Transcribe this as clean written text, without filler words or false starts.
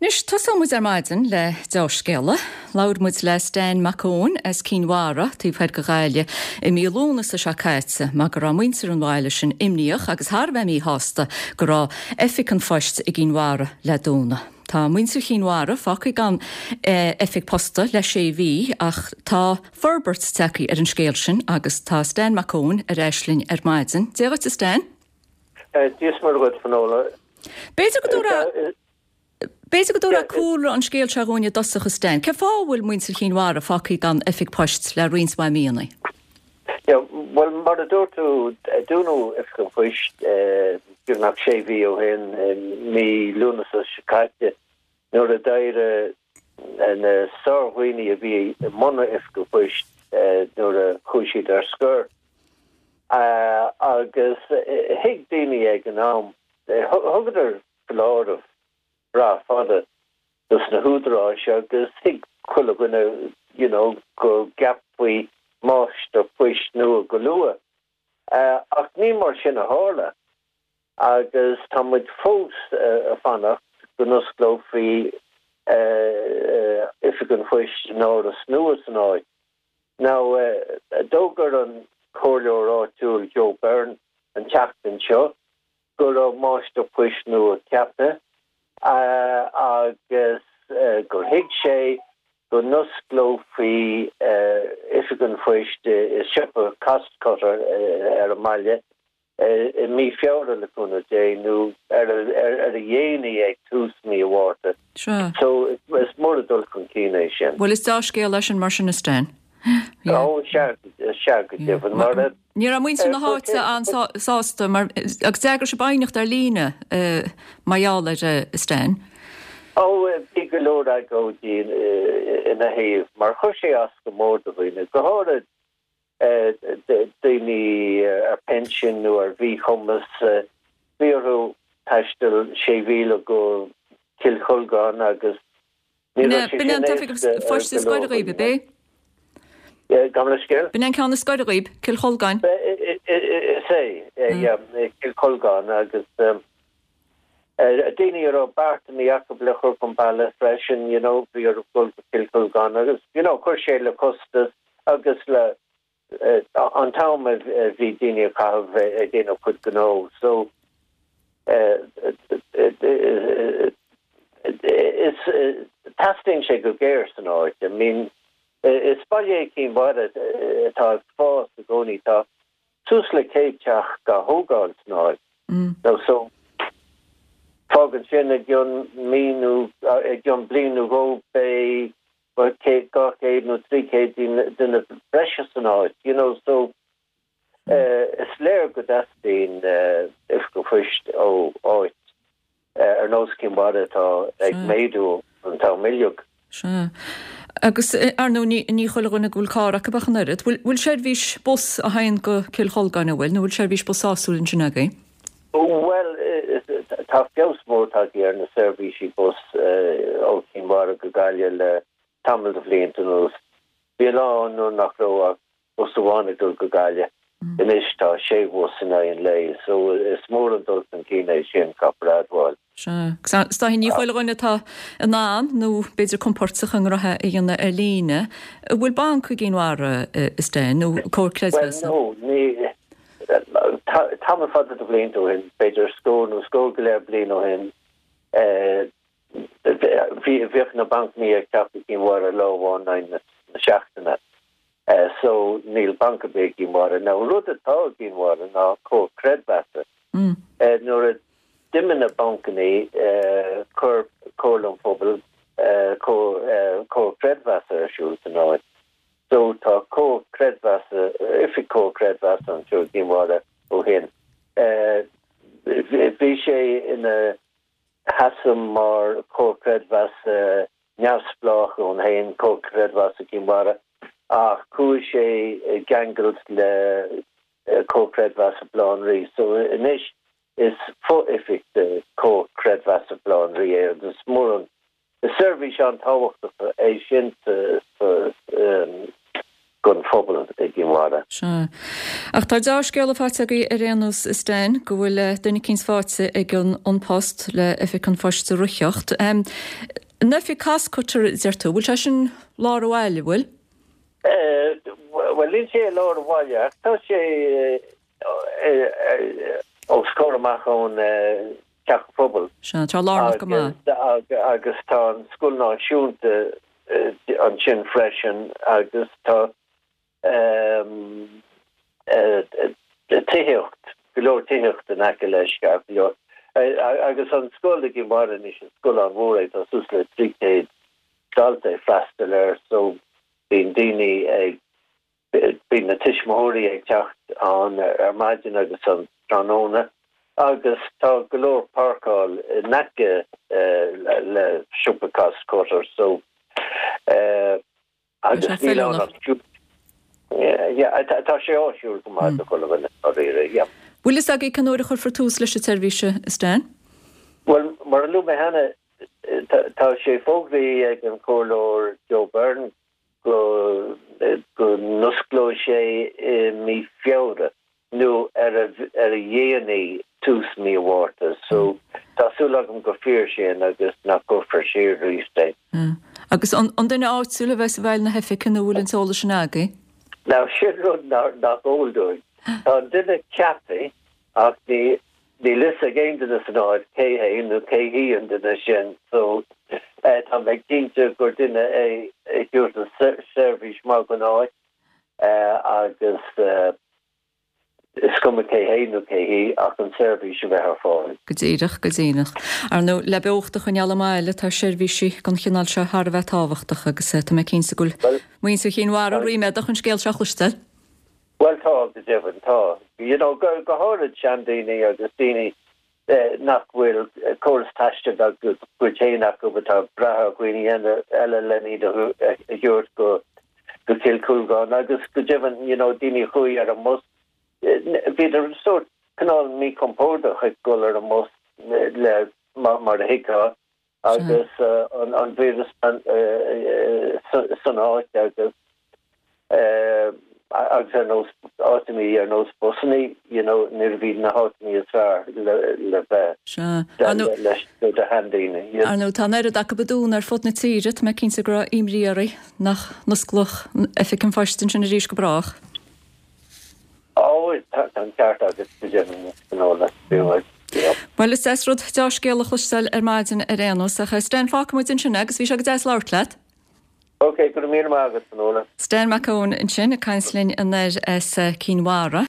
Anois, tosóidh muid ar maidin le deá-scéala. Labhair muid le Stan Mac Eoin as Cinn Mhara, taobh thoir de Ghaillimh, i mí Lúnasa seo caite mar go raibh muintir an bhaile sin imníoch agus thar a bheith míshásta go raibh Oifig an Phoist i gCinn Mhara le dúnadh. Tá muintir Chinn Mhara fágtha gan oifig posta le sé mhí ach tá forbairt tagtha ar an scéal sin agus tá Stan Mac Eoin ar ais linn ar maidin. Dia dhuit a Stan. Dia is Muire dhuit, Finola. B'fhéidir go dtabharfá B'fhéidir go dtabharfá cúlra an scéil seo dhúinn i dtosach, a Stan. Cén fáth a bhfuil muintir Chinn Mhara fágtha gan oifig poist le roinnt mhaith míonna? Yeah, bhuel, mar a dúirt tú, dúnadh Oifig an Phoist beagnach sé mhí ó shin, mí Lúnasa seo caite, nuair a d'éirigh na sárdhaoine a bhí i mbun Oifig an Phoist nuair a chuaigh siad ar scor. Agus thuig daoine ag an am, thugadar foláireamh breá fada dos na húdaráis agus thuig chuile dhuine you know go gceapfaí máistir poist nua go luath. Ach ní mar sin a tharla agus tá muid fós ag fanacht go n-osclófaí Oifig an Phoist in áras nua san áit. Now, d'fhógair an comhairleoir áitiúil Joe Byrne an tseachtain seo go raibh máistir poist nua ceaptha agus gur thuig sé go n-osclófaí Oifig an Phoist i siopa Costcutter ar an mbaile i mí Feabhra le cúnamh Dé nó ar a dhéanaí ag tús mí an Mhárta. So is mór an dul chun cinn é sin. Bhuel is dea-scéal é sin mar sin a Stan. Ó sea, sea go deimhin. Mar a. Ní raibh muintir na háite an-sásta mar agus d'eagraigh sibh aighneacht ar líne mar gheall air a Stan. Ó bhí go leor agóidí ina thaobh mar chuir sé as go mór do dhaoine, go háirid daoine ar pinsean nó ar mhíchumas. Bhí orthu taisteal sé mhíle go Cill Cholgáin agus ní raibh sé sin éasca ar go leor daoine. Gabh mo leithscéal? B'in é an ceann is gaire dhaoib, Cill Cholgáin. Is é, yeah, Cill Cholgáin agus daoine a raibh beartanna acu le cur chun bealaigh freisin, you know, bhí orthu dul go Cill Cholgáin agus, you know, chuir sé le costas agus le an t-am a bhí daoine ag caitheamh ag déanamh cuid gnó. So, is teastaíonn sé go géar san áit. I mean, is baile é Cinn Mhara atá ag fás i gcónaí. Tá suas le 100 teach á thógáil san áit. Now, so, fágann sin i gcionn mí nó i gcionn bliain nó dhó beidh 200 nó 300 duine breise san áit, you know, so is léir go dteastaíonn oifig an phoist ó áit ar nós Cinn Mhara atá ag méadú an t-am uilig. Sea. Agus, ar ndóigh, ní chuile dhuine go bhfuil carr acu ach an oiread. Bhfuil seirbhís bus a théann go Cill Cholgáin, an bhfuil, nó bhfuil seirbhís bus sásúil ansin agaibh? Bhuel, tá feabhas mór tagtha ar na seirbhísí bus ó Chinn Mhara go Gaillimh le tamall de bhlianta anuas. Bhí lá ann nuair nach raibh ach bus amháin ag dul go Gaillimh. Anois tá sé bhus in aghaidh an lae, so is mór an dul chun cinn é sin, caithfear a admháil. Sea. Agus is dóiche ní chuile dhuine atá in ann, nó b'fhéidir compordach a ngnótha a dhéanamh ar líne. An bhfuil banc i gCinn Mhara, a Stan, nó comhar creidmheasa? Bhuel, no, ní, tamall fada de bhlianta ó shin, b'fhéidir scór nó scór go leith bliain ó shin, bhíodh na bancanna ag teacht go Cinn Mhara lá amháin in aghaidh na seachtaine. So níl banc ar bith i gCinn Mhara. Now an rud atá i gCinn Mhara ná comhar creidmheasa. Nuair a d'imigh na bancanna chuir Comhairle an Phobail comhar creidmheasa ar siúl san áit. So tá comhar creidmheasa, oifig comhar creidmheasa anseo i gCinn Mhara ó shin. Bhí sé ina sheasamh mar chomhar creidmheasa neamhspleách ann féin, Comhar Creidmheasa Chinn Mhara, ach chuaigh sé i gceangal le Comhar Creidmheasa Bhaile Átha an Rí. So anois is fo-oifig de Chomhar Creidmheasa Bhaile Átha an Rí é agus is mór an, is seirbhís an-tábhachtach é sin sa. Don phobal i gCinn Mhara. Sea. Ach tá deá-scéala faighte agaibh ar aon nós, a Stan, go bhfuil duine eicínt faighte ag an An Post le Oifig an Phoist a reáchtáil. An oifig Costcutter, a deir tú, bhfuil sé sin lár an bhaile, bhfuil? Bhuel, níl sé i lár an bhaile ach tá sé os comhair amach ón Teach an Phobail. Sea, tá lárnach go maith. Agus tá an Scoil Náisiúnta ansin freisin agus tá tithíocht, go leor tithíocht in aice leis, ceart go leor. Agus an scoil i gCinn Mhara anois, is scoil an-mhór é, tá suas le 300 dalta ag freastal air so bíonn daoine ag Bíonn na tuismitheoirí ag teacht ann ar maidin agus an tráthnóna agus tá go leor páirceáil in aice le siopa Costcutter so agus níl ann ach yeah tá sé áisiúil go maith do chuile dhuine dáiríre yeah. Bhfuil fhios agaibh cén uair a chuirfear tús leis an tseirbhís, a Stan? Bhuel, mar a luaigh mé cheana, tá sé fógraithe ag an Chomhairleoir Joe Byrne go n-osclóidh sé i mí Feabhra nó ar a dhéanaí tús mí an Mhárta so tá súil agam gur fíor sin agus nach gcuirfear siar arís é. Agus an duine áitiúil a bheas i bhfeighil na hoifige nó bhfuil an t-eolas sin agaibh? Now sin rud nach eol dúinn. Tá an duine ceaptha ach ní Níl fhios ag aon duine san áit cé hé nó cé hí an duine sin so tá mé cinnte gur duine é a thabharfas seirbhís maith don áit agus is cuma cé hé nó cé hí ach an seirbhís a bheith ar fáil. Go díreach, go díreach. Ar ndóigh, le beocht a choinneáil i mbaile, tá seirbhísí den chineál seo thar a bheith tábhachtach agus tá mé cinnte go bhfuil muintir Chinn Mhara ríméadach an scéal seo a chloisteáil. Bhuel tá, go deimhin, tá. You know, go háirid seandaoine agus daoine nach bhfuil córas taistil dá gcuid féin acu atá ag brath ar dhaoine eile len iad a thabhairt go Cill Chúlgáin agus go deimhin, you know, daoine a chuaigh ar an mbus, bhíodar sórt cineál míchompordach ag dul ar an mbus le, mar a thuigfeá. agus an víreas san áit agus agus ar nós áiteanna ar nós busanna you know nuair a bhí na háiteanna is fearr le bheith leis do sheandaoine. Ar ndóigh tá an oiread acu ag dúnadh ar fud na tíre, tá mé cinnte go raibh imní oraibh nach n-osclódh Oifig an Phoist ansin arís go brách. Ó, tá an ceart agat, go deimhin, Finola. Bhuel, is deas rud deá-scéal a chloisteáil ar maidin ar aon nós, ach Stan, fágfaidh muid ansin é agus bhí sé go deas labhairt leat. Ok, go raibh míle maith agat, Finola. Stan Mac Eoin ansin ag caint linn anoir as Cinn Mhara.